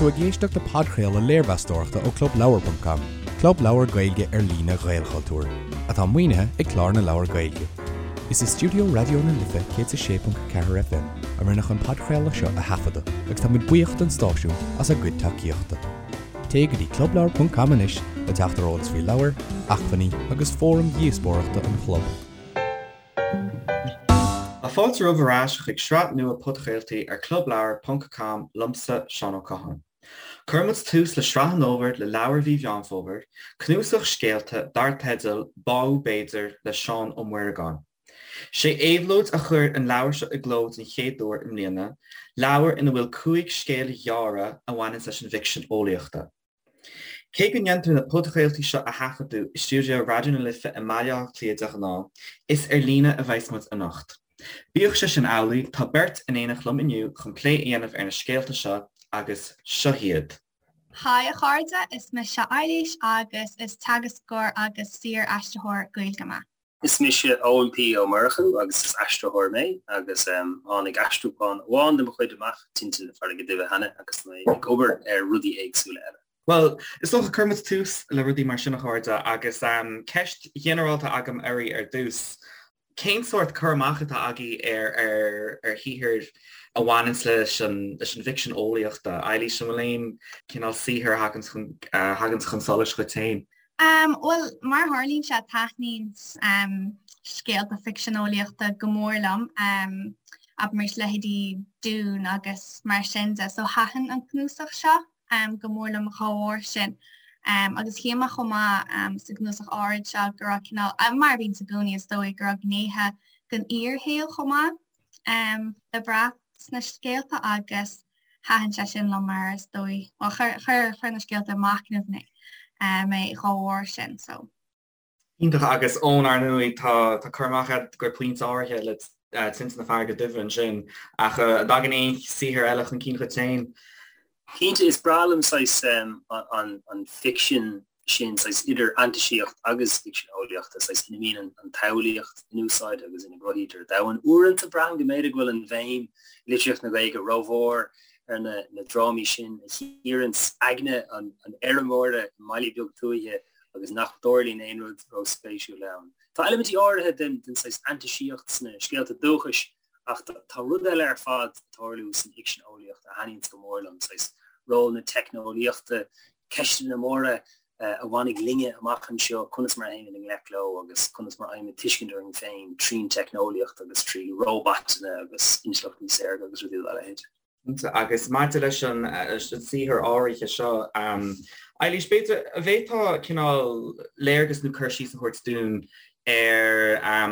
tú ag éisteacht le podchraoladh léirmheastóireachta ó ClubLeabhar.com, club leabhar Gaeilge ar líne Ghaelchultúir, atá maoinithe ag Clár na Leabhar Gaeilge. Is i stiúideo Raidió na Life 106.4 FM a rinneadh an podchraoladh seo a thaifeadadh agus tá muid buíoch don stáisiún as a gcuid tacaíochta. Téigh go dtí clubleabhar.com anois le teacht ar eolas faoi leabhair, acmhainní agus fóraim dhíospóireachta an chlub. Tá fáilte romhaibh ar ais chuig sraith nua podchraoltaí ar clubleabhar ponc com liomsa, Seán Ó Catháin. Cuirfidh muid tús le sraith an fhómhair le leabhar mhí Mheán Fómhair, cnuasach scéalta dar teideal Báú B'fhéidir le Seán Ó Muireagáin. Sé Éabhlóid a chuir an leabhar seo i gcló den chéad uair i mbliana, leabhar ina bhfuil 5 scéal ghearra a bhaineanns leis an bhficsean eolaíochta. Cé go ndéantar na podchraoltaí seo a thaifeadadh i stiúideo Raidió na Life i mBaile Átha Cliath de ghnáth, is ar líne a bheas muid anocht. Bíodh sé sin amhlaidh, tá beirt in éineacht liom inniu chun plé a dhéanamh ar na scéalta seo agus seo hiad. Haigh a chairde, is mise Eilís agus is teagascóir agus saor-aistritheoir Gaeilge mé. Is mise Eoin P. Ó Murchú agus is aistritheoir mé agus tháinig aistriúchán amháin de mo chuid amach, Tinte na Farraige Duibhe cheana agus tá mé ag obair ar rudaí éagsúla eile. Bhuel, is dócha, cuirfidh muid tús le rudaí mar sin a chairde agus ceist ghinearálta agam oraibh ar dtús. Cén sórt cur amach atá agaibh ar ar shaothair a bhaineanns leis an leis an bhficsean eolaíochta? Eilís, an bhfuil aon cineál saothair a thaganns chun a thaganns chun solais dhuit féin? Bhuel, mar a tharlaíonn sé, taitníonn scéalta ficsean eolaíochta go mór liom, abraimis leithéidí Dune agus mar sin de, so thaitin an cnuasach seo. go mór liom dá bharr sin. Agus shíl mé chomh maith sa gcnuasach áirid seo go raibh cineál, mar a bhíonns i gcónaí is dóigh, go raibh gnéithe den fhíorshaol chomh maith le brath sna scéalta agus thaitin sé sin liom mar is dóigh, bhuel chuir, chuir na scéalta ag machnamh mé mé dá bharr sin so. Iontach agus Eoin ar ndóigh tá tá cur amach agat go pointe áirithe le Tinte na Farraige Duibhe ansin ach an dtagann aon saothar eile chun cinn dhuit féin? Cinnte, is breá liom saghas an an ficsean sin, saghas idir fhantaisíocht agus ficsean eolaíochta, saghas ina mbíonn an tsamhlaíocht in úsáid agus ina gcruthaítear domhan. Uaireanta braithim go mb'fhéidir go bhfuil an bhéim i litríocht na Gaeilge rómhór ar na na drámaí sin a chíoranns aigne an an fheirmeora i mbaile beag tuaithe agus nach dtarlaíonn aon rud róspéisiúil ann. Tá eilimintí áirithe den saghas fhantaisíocht sna scéalta dúchais ach tá rud eile ar fad ag tarlú san fhicsean eolaíochta a thaitníonns go mór liom, saghas ról na teicneolaíochta, ceisteanna móra a bhainfidh linne amach anseo, conas mar a théimid i ngleic leo agus conas mar a fhaighimid tuiscint orainn féin trín teicneolaíocht agus trí róbatanna agus intleachtaí saorga agus rudaí dá leithéid. Agus maidir leis an saothar áirithe seo, Eilís, b'fhéidir, an bhféadfá cineál léargas nó cur síos a thabhairt dúinn ar,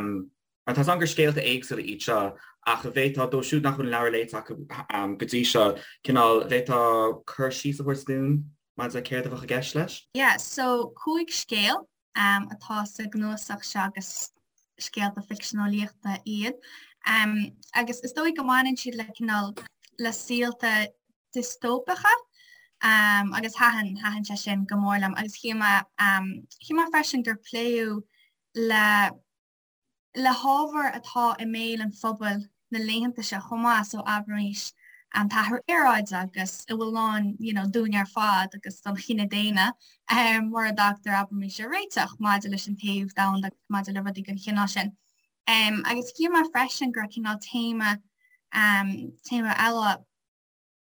mar tá 's agam gur scéalta éagsúla iad seo, ach an bhféadfá, dóibh siúd nach bhfuil an leabhar léite acu go dtí seo, cineál, an bhféadfá cur síos a thabhairt dúinn maidir le céard a bheadh i gceist leis? Yeah, so 5 scéal atá sa gcnuasach seo agus scéalta ficsean eolaíochta iad. Agus is dóigh go mbaineann siad le cineál le saolta diostóipeacha agus thaitin thaitin sé sin go mór liom agus shíl mé shíl mé freisin gur pléadh le le hábhar atá i mbéal an phobail na laethanta seo chomh maith, so abraimis an t-athrú aeráide agus a bhfuil i ndán you know dúinn ar fad agus don chine daonna mura dtagtar abraimis ar réiteach maidir leis an téamh domhanda agus maidir le rudaí den chineál sin. Agus shíl mé freisin go raibh cineál téama téama eile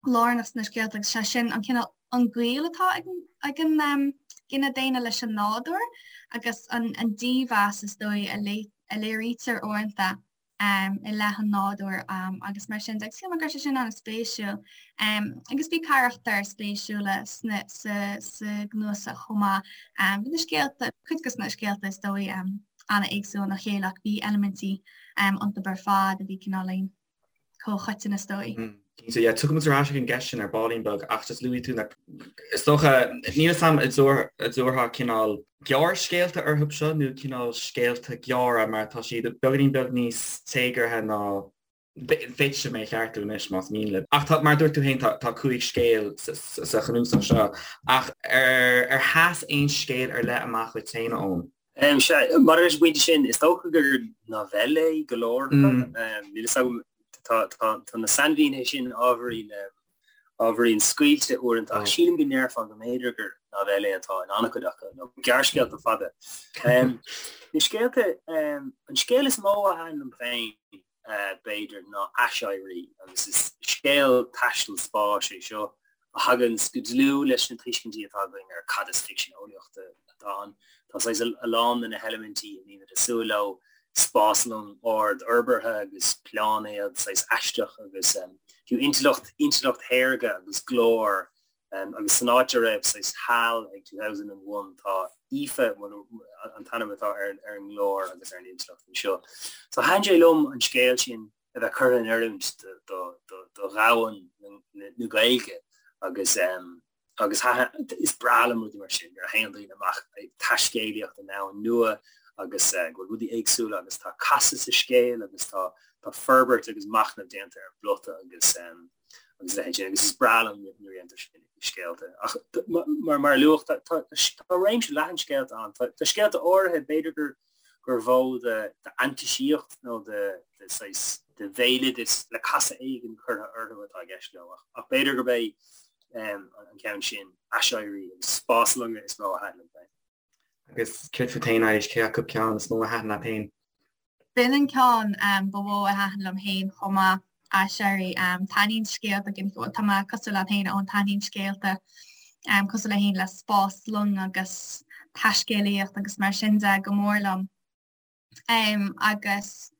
lárnach sna scéalta agus sé sin an cineál an gaol atá ag ag an gcine daonna leis an nádúr agus an an dímheas is dóigh a a léirítear uaireanta i leith an nádúir agus mar sin de. Agus shíl mé go raibh sé sin an-spéisiúil. Agus bhí carachtair spéisiúla sna sa sa gcnuasach chomh maith. Bhí na scéalta, cuid de na scéalta is dóigh an-éagsúil óna chéile ach bhí eilimintí iontu ar fad a bhí cineáilín comhchoiteann is dóigh. Cinnte, yeah, tiocfaidh muid ar ais ag an gceist sin ar baillín beag ach just luaigh tú na, is dócha, níl 'fhios a'm an dtabharfá cineál gearrscéalta orthu seo nó cineál scéalta gearra mar tá siad beagáinín beag níos téagartha ná, féadfaidh sibh mé a cheartú anois más mian libh. Ach tá, mar a dúirt tú féin, tá, tá 5 scéal sa chnuasach seo ach ar, ar sheas aon scéal ar leith amach dhuit féin, a Eoin? Sea, maidir leis an bpointe sin, is dócha gur novellae go leor acu. Níl fhios agam, tá na sainmhínithe sin ábhairín. ábhairín scaoilte uaireanta ach sílim go ndéarfá go mb'fhéidir gur novellae atá in an-chuid acu nó gearrscéalta fada. Na scéalta, an scéal is mó a thaitin liom féin b'fhéidir ná Aiséirí agus is scéal taistil spáis é seo a thaganns go dlúth leis na tuiscintí atá againn ar cad is ficsean eolaíochta atá ann. Tá saghas a lán de na heilimintí a mbímid ag súil leo, spáslong ard-fhorbartha agus pláinéad saghas aisteach agus fiú intleacht, intleacht shaorga agus glór agus san áit a raibh saghas HAL ag 2001 tá Aoife an t-ainm atá ar an nglór agus ar an intleacht anseo. So thaitin sé liom an scéal sin a bheith curtha in oiriúint do dhomhan na Gaeilge agus agus is breá liom rudaí mar sin nuair a théann daoine amach ag taiscéalaíocht i ndomhan nua agus go bhfuil rudaí éagsúla agus tá casadh sa scéal agus tá tá forbairt agus machnamh déanta ar an bplota agus agus a leithéid sin agus is breá liom nuair a dhéantar sin i scéalta. Ach mar mar a luadh tá tá tá réimse leathan scéalta ann. Tá tá scéalta áirithe b'fhéidir gur gur mhó de fhantaisíocht nó de de saghas de bhéaloideas le casadh éigin curtha orthu atá i gceist leo ach ach b'fhéidir gurb é an ceann sin, Aiséirí agus Spáslonga is mó a thaitin liom féin. Agus céard fút féin, Eilís, cé acu ceann is mó a thaitin leat féin? B'in an ceann ba mhó a thaitin liom féin chomh maith, Aiséirí. Taitníonn scéalta, tá mé cosúil leat féin, Eoin, taitníonn scéalta cosúil le féin le spáslong agus taiscéalaíocht agus mar sin de go mór liom. Agus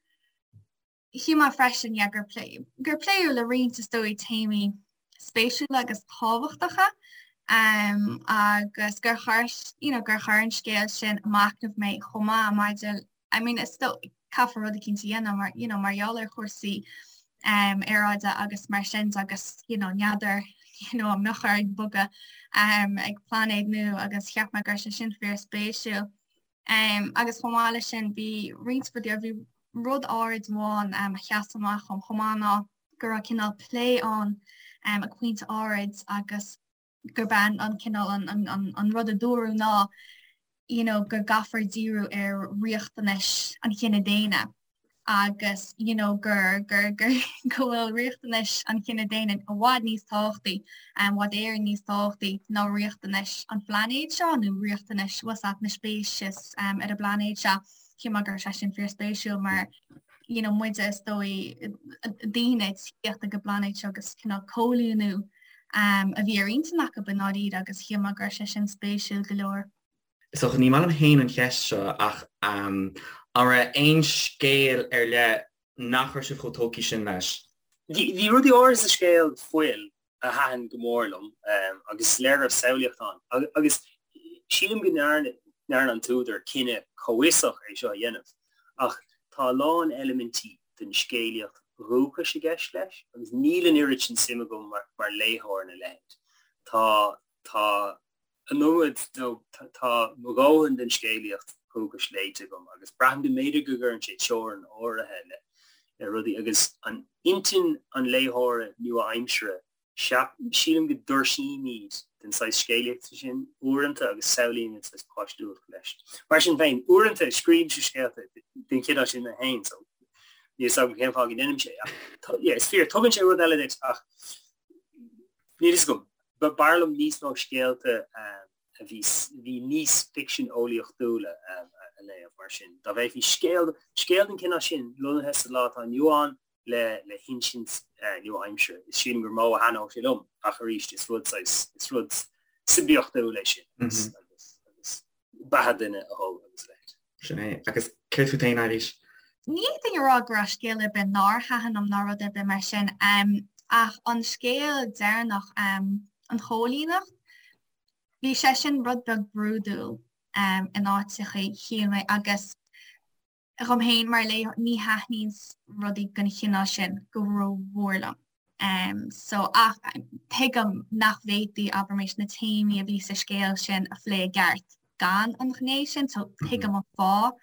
shíl mé freisin, yeah, gur plé, gur pléadh le roinnt is dóigh téamaí spéisiúla agus tábhachtacha um, agus gur chuir, you know, gur chuir an scéal sin ag machnamh mé chomh maith maidir, I mean, is dóigh caithfear rud eicínt a dhéanamh mar, you know, mar gheall ar chúrsaí um, aeráide agus mar sin de agus, you know, n'fheadar, you know, an mbeadh orainn bogadh um, ag pláinéad nua agus cheap mé go raibh sé sin fíorspéisiúil. Agus chomh maith leis sin, bhí roinnt rudaí, bhí rud áirid amháin a sheas amach dom chomh maith ná go raibh cineál plé ann ag pointe áirid agus gurb é an cineál an rud a dúradh ná you know go gcaithfear díriú ar riachtanais an chine daonna. agus you know gur gur gur go bhfuil riachtanais an chine daonna i bhfad níos tábhachtaí, i bhfad Éireann níos tábhachtaí ná riachtanais an phláinéid seo nó riachtanais bhfuil a fhios agat na speicis um, ar an bpláinéad seo. Shíl mé go raibh sé sin fíorspéisiúil mar you know, muide is dóigh daoine ag tíocht ag an bpláinéad seo agus cineál coilíniú um, a bhí ar intinn acu i ndáiríre agus shíl mé go raibh sé sin spéisiúil go leor. Is dócha, ní maith liom féin an cheist seo ach an raibh aon scéal ar leith nach raibh sibh chomh tógtha sin leis? Bhí rudaí áirithe sa scéal Fuil a thaitin go mór liom agus is léir go raibh samhlaíocht ann agus sílim go ndearna an t-údar cinneadh comhfhiosach é seo a dhéanamh ach tá a lán eilimintí den scéalaíocht dhúchais i gceist leis agus níl an oiread sin suim agam mar léitheoir ina leithéid. Tá tá an iomad nó tá mo dhóthain den scéalaíocht dhúchais léite agam agus braithim go mb'fhéidir go gcuireann sé teorainn áirithe le rudaí agus an intinn an léitheora nua-aimseartha, sílim go dtuirsímid den saghas scéalaíochta sin uaireanta agus samhlaímid saghas páistiúlacht leis. Mar sin féin, uaireanta scríobhaimse scéalta den chineál sin mé féin so níl 'fhios agam cén fáth go ndeinim sé ach yeah, is fíor, tugann sé rud eile duit ach níl 'fhios agam. B'fhearr liom níos mó scéalta a bhí bhí níos ficsean eolaíochtúla a léamh mar sin. Dá bhféadfaí scéal scéal den chineál sin lonnaithe sa lá atá inniu ann le le hinsint nua-aimseartha, is sílim gur mó a thaitneodh sé liom ach arís is rud saghas is rud suibiachtúil é sin agus agus agus beatha duine a thoil agus a leithéid. Sin é. Agus céard fút féin, Eilís? Ní fhéadfainn a rá go raibh scéal ar bith nár thaitin liom ná rud ar bith mar sin, ach an scéal deireanach, an choilíneacht, bhí sé sin rud beag brúidiúil in áiteachaí, shíl mé, agus dhom féin mar léitheoir, ní thaitníonn rudaí den chineál sin go rómhór liom. So, ach tuigim nach bhféadfaí, abraimis, na téamaí a bhí sa scéal sin a phlé i gceart gan an ghné sin, so tuigim an fáth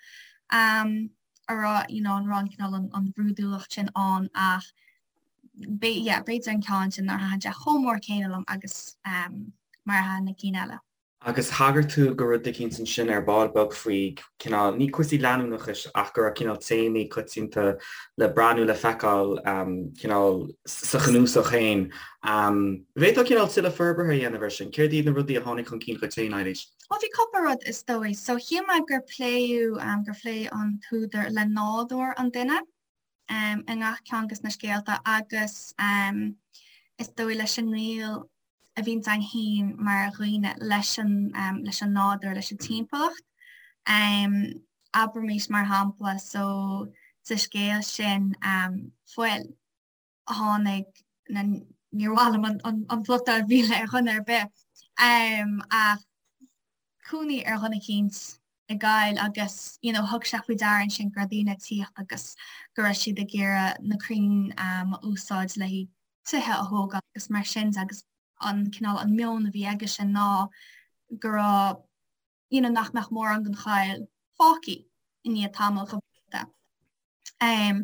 a raibh, you know, an raibh an cineál an bhrúidiúlacht sin ann ach yeah, b'fhéidir an ceann sin nár thaitin sé chomh mór céanna liom agus mar a thaitin na cinn eile. Agus thagair tú do rud eicínt ansin ar ball beag faoi cineál, ní cúrsaí leanúnachais ach go raibh cineál téamaí coitianta le brath nó le feiceáil cineál sa chnuasach féin. Bhféadfá cineál tuilleadh forbartha a dhéanamh air sin? Céard iad na rudaí a tháinig chun cinn dhuit féin, Eilís? Bhuel, bhí cúpla rud is dóigh. So shíl mé gur pléadh, gur phléigh an t-údar le nádúr an duine. i ngach ceann de na scéalta agus is dóigh leis an ngaol a bhíonns againn féin mar dhaoine leis an leis an nádúr, leis an timpeallacht. Abraimis mar shampla so sa scéal sin Fuil tháinig na níor mhaith liom an plota a mhilleadh ar dhuine ar bith ach cónaí ar dhuine eicínt i gcoill agus you know thug sé faoi deara ansin go raibh daoine ag tíocht agus go raibh siad ag iarraidh na crainn a úsáid le haghaidh tithe a thógáil agus mar sin de agus an cineál an meon a bhí aige sin ná go raibh you know nach mbeadh mórán den choill fágtha i ndiaidh tamaill go Um,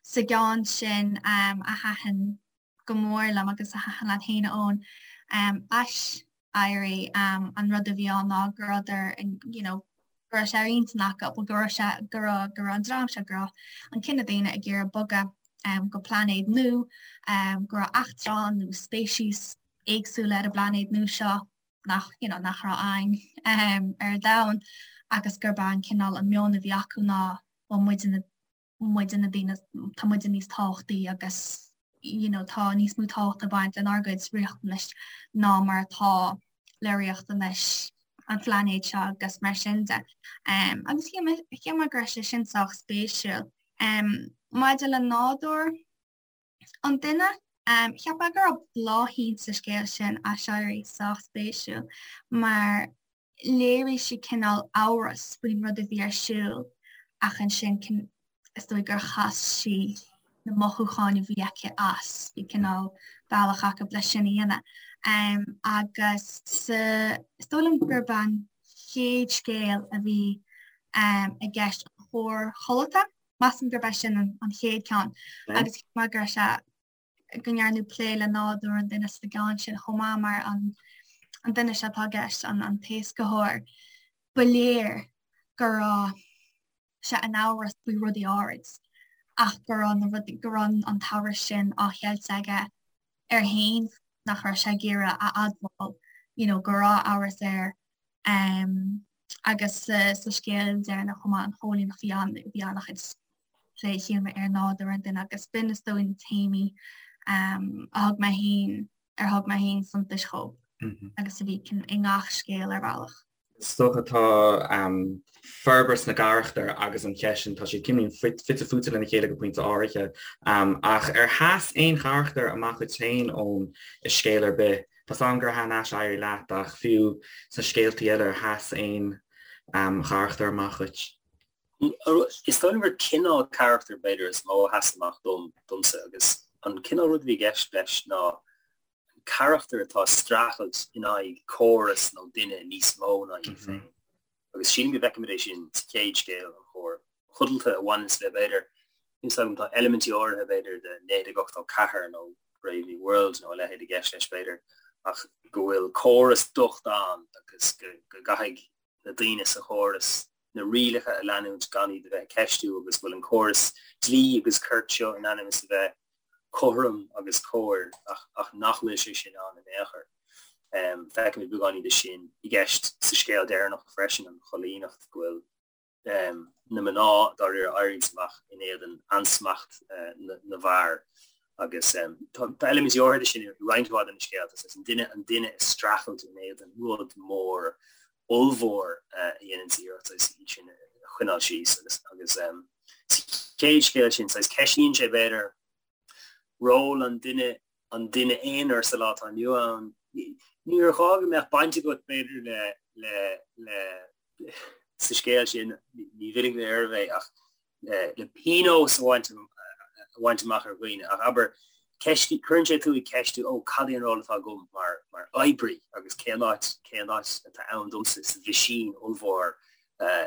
sa gceann sin um, a thaitin go mór liom agus a thaitin leat féin a Eoin, um, Aiséirí, um, an rud a bhí ann ná go rabhadar you know, go raibh sé ar intinn acu, go raibh sé go raibh go raibh an dream seo go raibh an cine daonna ag iarraidh bogadh um, go pláinéad nua, um, go raibh eachtráin nó speicis éagsúla ar an bpláinéad nua seo nach you know, nach raibh ann um, ar an domhan agus gurb é an cineál an meon a bhí acu ná bhuel muide na muide na daoine tá muide níos tábhachtaí agus you know tá níos mó tábhacht ag baint lenár gcuid riachtanais ná mar atá le riachtanais an phláinéid seo agus mar sin de. Um, agus shíl mé go raibh sé sin sách spéisiúil. Um, maidir le nádúr an duine, um, cheap mé go raibh Bláithín sa scéal sin Aiséirí sách spéisiúil mar léirigh sí cineál amhras faoin rud a bhí ar siúl ach ansin is dóigh gur chas sí na mothúcháin a bhí aici as, bhí cineál bealach acu leis sin a dhéanamh. Um, agus sa, is dóigh liom gurb an chéad scéal a bhí um, i gceist an chóir chodlata, measaim gurb é sin an, an chéad ceann agus cheap mé go raibh sé go ndearnadh plé le nádúr an duine sa gceann sin chomh maith mar an an duine seo atá i gceist, an an t-éascaitheoir, ba léir go raibh sé in amhras faoi rudaí áirid ach go raibh na rudaí go raibh an t-amhras sin á cheilt aige air féin nach raibh sé ag iarraidh a admháil you know, go raibh amhras air um, agus sa, sa scéal deireanach chomh maith an choilíneacht bhí an bhí an-chuid plé shíl mé ar nádúr an duine agus b'in is dóigh na téamaí um, a thug mé féin ar thug mé féin suntas dhóibh mm -hmm. agus a bhí i ngach scéal ar bhealach. Is dócha tá um, forbairt na gcarachtar agus an cheist sin tá siad cineál fite fuaite lena chéile go pointe áirithe um, ach ar sheas aon charachtar amach duit féin ón i scéal ar bith Tá 's agam gur thaitin Aiséirí leat ach fiú sna scéaltaí eile ar sheas aon um, charachtar amach duit? Is dóigh liom gur cineál carachtair b'fhéidir is mó a sheas amach dom, domsa agus an cineál rud a bhí i gceist leis ná an carachtar atá ag streachailt in aghaidh córas nó duine níos mó ná iad féin. Agus sílim go bhfeicimid é sin sa chéad scéal, an chóir chodlata a bhaineanns le b'fhéidir, níl 's agam, tá eilimintí áirithe b'fhéidir de 1984 nó Brave New World nó a leithéid i gceist leis b'fhéidir ach go bhfuil córas docht ann agus go gcaithfidh na daoine sa chóras na rialacha a leanúint gan iad a bheith ag ceistiú agus go bhfuil an córas dlí agus cirt seo in ainm is a bheith cothrom agus cóir ach, ach nach bhfuil sé sin ann in aon chor. Um, feicimid beagáinín de sin i gceist sa scéal deireanach freisin an choilíneacht go bhfuil na mná dáiríre ag éirí amach in éadan ansmacht na bhfear agus tá eilimintí áirithe de sin i roinnt mhaith de na scéalta, is an duine an duine ag streachailt in éadan rud mór ollmhór a dhéanann iarracht saghas iad sin a choinneáil síos agus agus sa chéad scéal sin saghas ceistíonn sé b'fhéidir ról an duine an duine aonair sa lá atá inniu ann. Níor ghá go mbeadh baint agat b'fhéidir le le le sa scéal sin, ní mhillfidh mé oraibh é, ach le pionós a bhaint a bhaint amach ar dhaoine. Ach abair, ceist, cuireann sé tú ag ceistiú, ó, cad é an ról atá agam mar, mar oibrí agus cén áit, cén áit atá ann domsa sa mheaisín ollmhór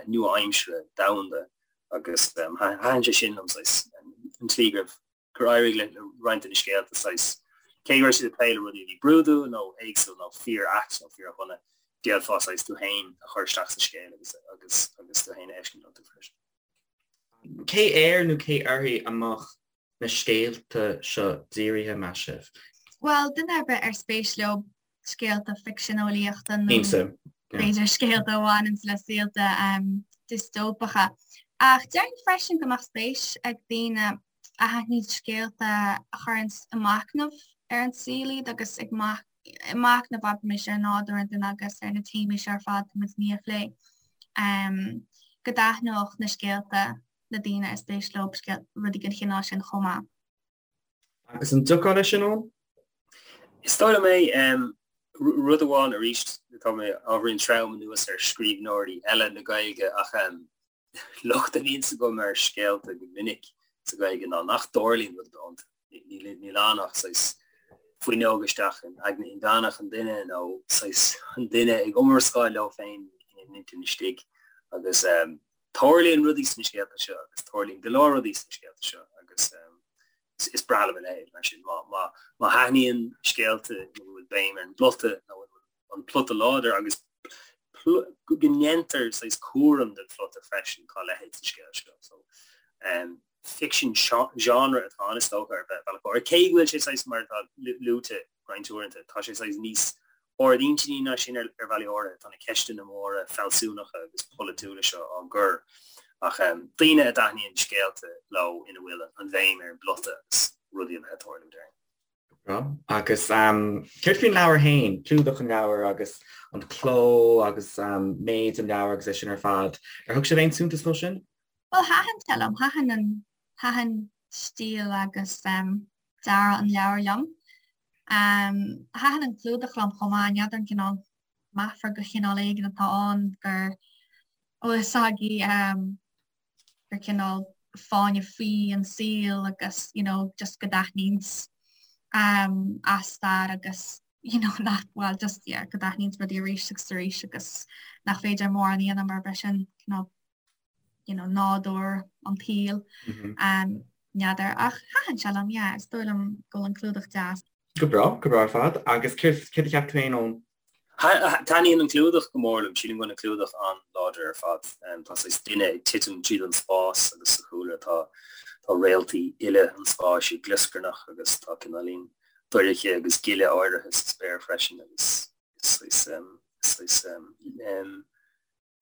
nua-aimsire domhanda. Agus thaitin sé sin liom, saghas, an tslí go raibh, gur éirigh le roinnt de na scéalta, saghas, cé go raibh siad ag plé le rudaí a bhí brúidiúil nó éagsúil nó fíor-ait nó fíor-dhona. D'fhéadfá saghas tú féin a chur isteach sa scéal agus agus agus tú féin a fheiscint iontu freisin. Cé air nó cé uirthi a mbeadh na scéalta seo dírithe, meas sibh? Bhuel, duine ar bith ar spéis leo scéalta ficsean eolaíochta nó b'fhéidir scéalta a bhaineanns le saolta diostóipeacha. Ach déarfainn freisin go mbeadh spéis ag daoine a thaitníonn scéalta a chuireanns ag machnamh ar an saol iad agus ag machnamh abraimis ar nádúr an duine agus ar na téamaí seo ar fad atá muid i ndiaidh a phlé. Go dtaitneodh na scéalta le daoine ar spéis leo rudaí den chineál sin chomh maith. Agus an dtiocfá leis sin, Eoin? Is dóigh liom é. Rud amháin arís, tá mé ábhairín trom anuas ar scríbhneoirí eile na Gaeilge ach locht a bhíonns agam ar scéalta go minic sa Ghaeilge ná nach dtarlaíonn rud ar bith iontu. Níl ann ach saghas fuinneog isteach in aigne inmheánach an duine nó saghas an duine ag iomrascáil leo féin ina n-intinn istigh agus tarlaíonn rudaí sna scéalta seo agus tarlaíonn go leor rudaí sna scéalta seo agus is breá liom a leithéid mar sin. Má thaitníonn scéalta ina bhfuil béim ar an bplota nó ina bhfuil an plota láidir agus go ndéantar saghas cúram den phlota freisin, tá a leithéid sa scéal seo. So, ficsean genre atá ann is dócha ar bhealach áirithe, cé go bhfuil sé saghas mar atá luaite roinnt uaireanta, tá sé saghas níos ardintinní ná sin ar bhealaí áirithe. Tá na ceisteanna móra fealsúnacha agus polaitiúla seo á gcur ach daoine a dtaitníonn scéalta leo ina bhfuil an bhéim ar an bplota agus rudaí a bheith ag tarlú, déarfainn. Go breá. Agus céard faoin leabhar féin, clúdach an leabhair agus an cló agus méid an leabhair agus é sin ar fad, ar thug sibh aon suntas dó sin? Bhuel, thaitin sé liom. Thaitin an, thaitin stíl agus dearadh an leabhair liom. Thaitin an clúdach liom chomh maith, n'fheadar an cineál meafar de chineál éigin atá ann gur bhfuil fhios agaibh gur cineál fáinne fí an saol agus you know just go dtaitníonns as stair agus you know nach bhuel just yeah go dtaitníonns rudaí arís agus arís agus nach féidir mórán a dhéanamh mar b'é sin cineál you know, nádúr an tsaoil, n'fheadar, ach thaitin sé liom, yeah, is dóigh liom go bhfuil an clúdach deas. Go breá, go breá ar fad. Agus céard a cheap tú féin, Eoin? Taitníonn an clúdach go mór liom, sílim go bhfuil an clúdach an-láidir ar fad. Tá saghas duine ag titim tríd an spás agus sa chúlra tá tá réaltaí uile an spáis ag glioscarnach agus tá cineáilín dorcha agus gile áirithe sa spéir freisin agus is saghas saghas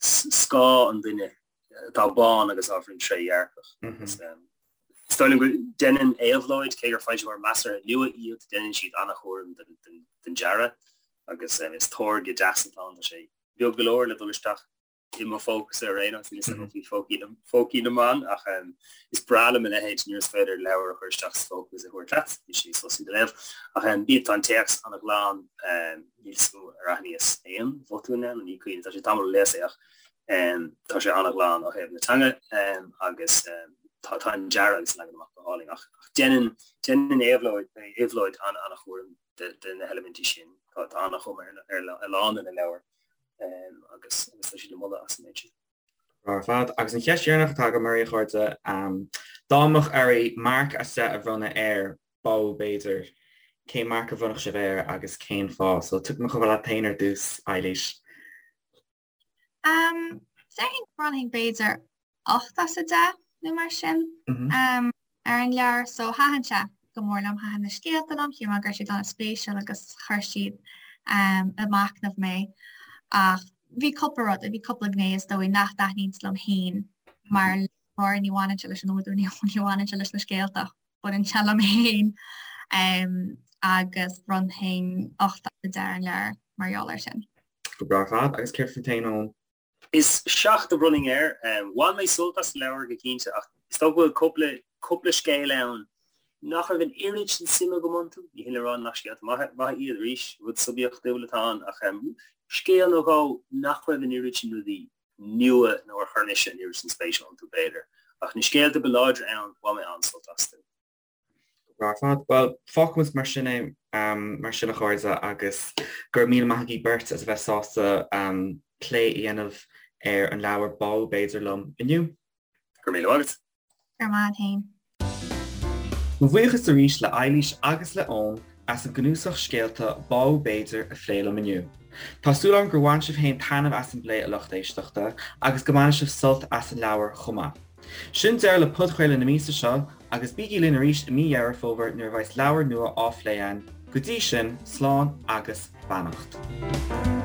scáth an duine atá bán agus ábhairín trédhearcach. Is dóigh liom go ndéanann Éabhlóid, cé gur foilsitheoir measartha nua iad, déanann siad an-chúram den dearadh agus is táirge deas atá ann. Tá sé beag go leor le dul isteach i mo phócasa ar aon nós, níl a fhios agam faoi phócaí na mban ach is breá liom a leithéid nuair is féidir leabhar a chur isteach sa phóca agus a thabhairt leat, níl sé níos fusa do léamh. Ach bíonn, tá an téacs an-ghlan, Níl 'fhios agam ar aithníos aon bhotún ann, ní cuimhin, tá sé tamall ó léas é ach tá sé an-ghlan ó thaobh na teanga agus tá tá an dearadh agus an leagan amach go hálainn ach déanann déanann Éabhlóid Éabhlóid an-an-chúram de de na heilimintí sin. Tá tá an-chuma ar ar a lán de na leabhair agus agus tá siad le moladh as an méid sin. Ar fad. Agus an cheist dheireanach atá agam oraibh, a chairde, dá mbeadh oraibh marc as 10 a bhronnadh ar Bádh b'fhéidir. Cén marc a bhronnfadh sibh air agus cén fáth? So tiocfaidh mé chomh fada leat féin ar dtús, Eilís. Um, déarfainn go mbronnfainn b'fhéidir 8 as 10 nó mar sin um, ar an leabhar, so thaitin sé go mór liom, thaitin na scéalta liom, shíl mé go raibh siad an-spéisiúil agus chuir siad um, ag machnamh mé. Ach bhí cúpla rud, bhí cúpla gné is dóigh nach dtaitníonns liom féin mar léitheoir, ní bhaineann sé leis an údar, ní bhaineann sé leis na scéalta ach baineann sé liom féin agus bhronnfainn 8 as 10 ar an leabhar mar gheall air sin. Go breá ar fad. Agus céard fút féin, Eoin? Is 7 a bhronnfainn air. Bhain mé sult as an leabhar go cinnte ach is dócha go bhfuil cúpla cúpla scéal ann nach raibh an oiread sin suime agam iontu. Ní hin le rá nach scéalta maithe maithe iad arís, rud suibiachtúil atá ann ach scéal nó dhó nach raibh an oiread sin rudaí nua nó ar chuir mise an oiread sin spéise iontu, b'fhéidir. Ach na scéalta ba láidre ann, bhain mé an-sult astu. Go breá ar fad. Bhuel, fágfaimid mar sin é, mar sin a chairde, agus go raibh míle maith agaibh beirt as a bheith sásta plé a dhéanamh ar an leabhar Bádh B'fhéidir liom inniu. Go raibh míle maith agat. Go raibh maith agat féin. Mo bhuíochas arís le Eilís agus le Eoin. as an gcnuasach scéalta Bádh B'fhéidir a phlé liom inniu. Tá súil agam gur bhain sibh féin taitneamh as an bplé a lucht éisteachta agus go mbainfidh sibh sult as an leabhar chomh maith. Sin deireadh le podchraoladh na míosa seo agus bígí linn arís i mí Dheireadh Fómhair nuair a bheas leabhar nua á phlé againn. Go dtí sin, slán agus beannacht.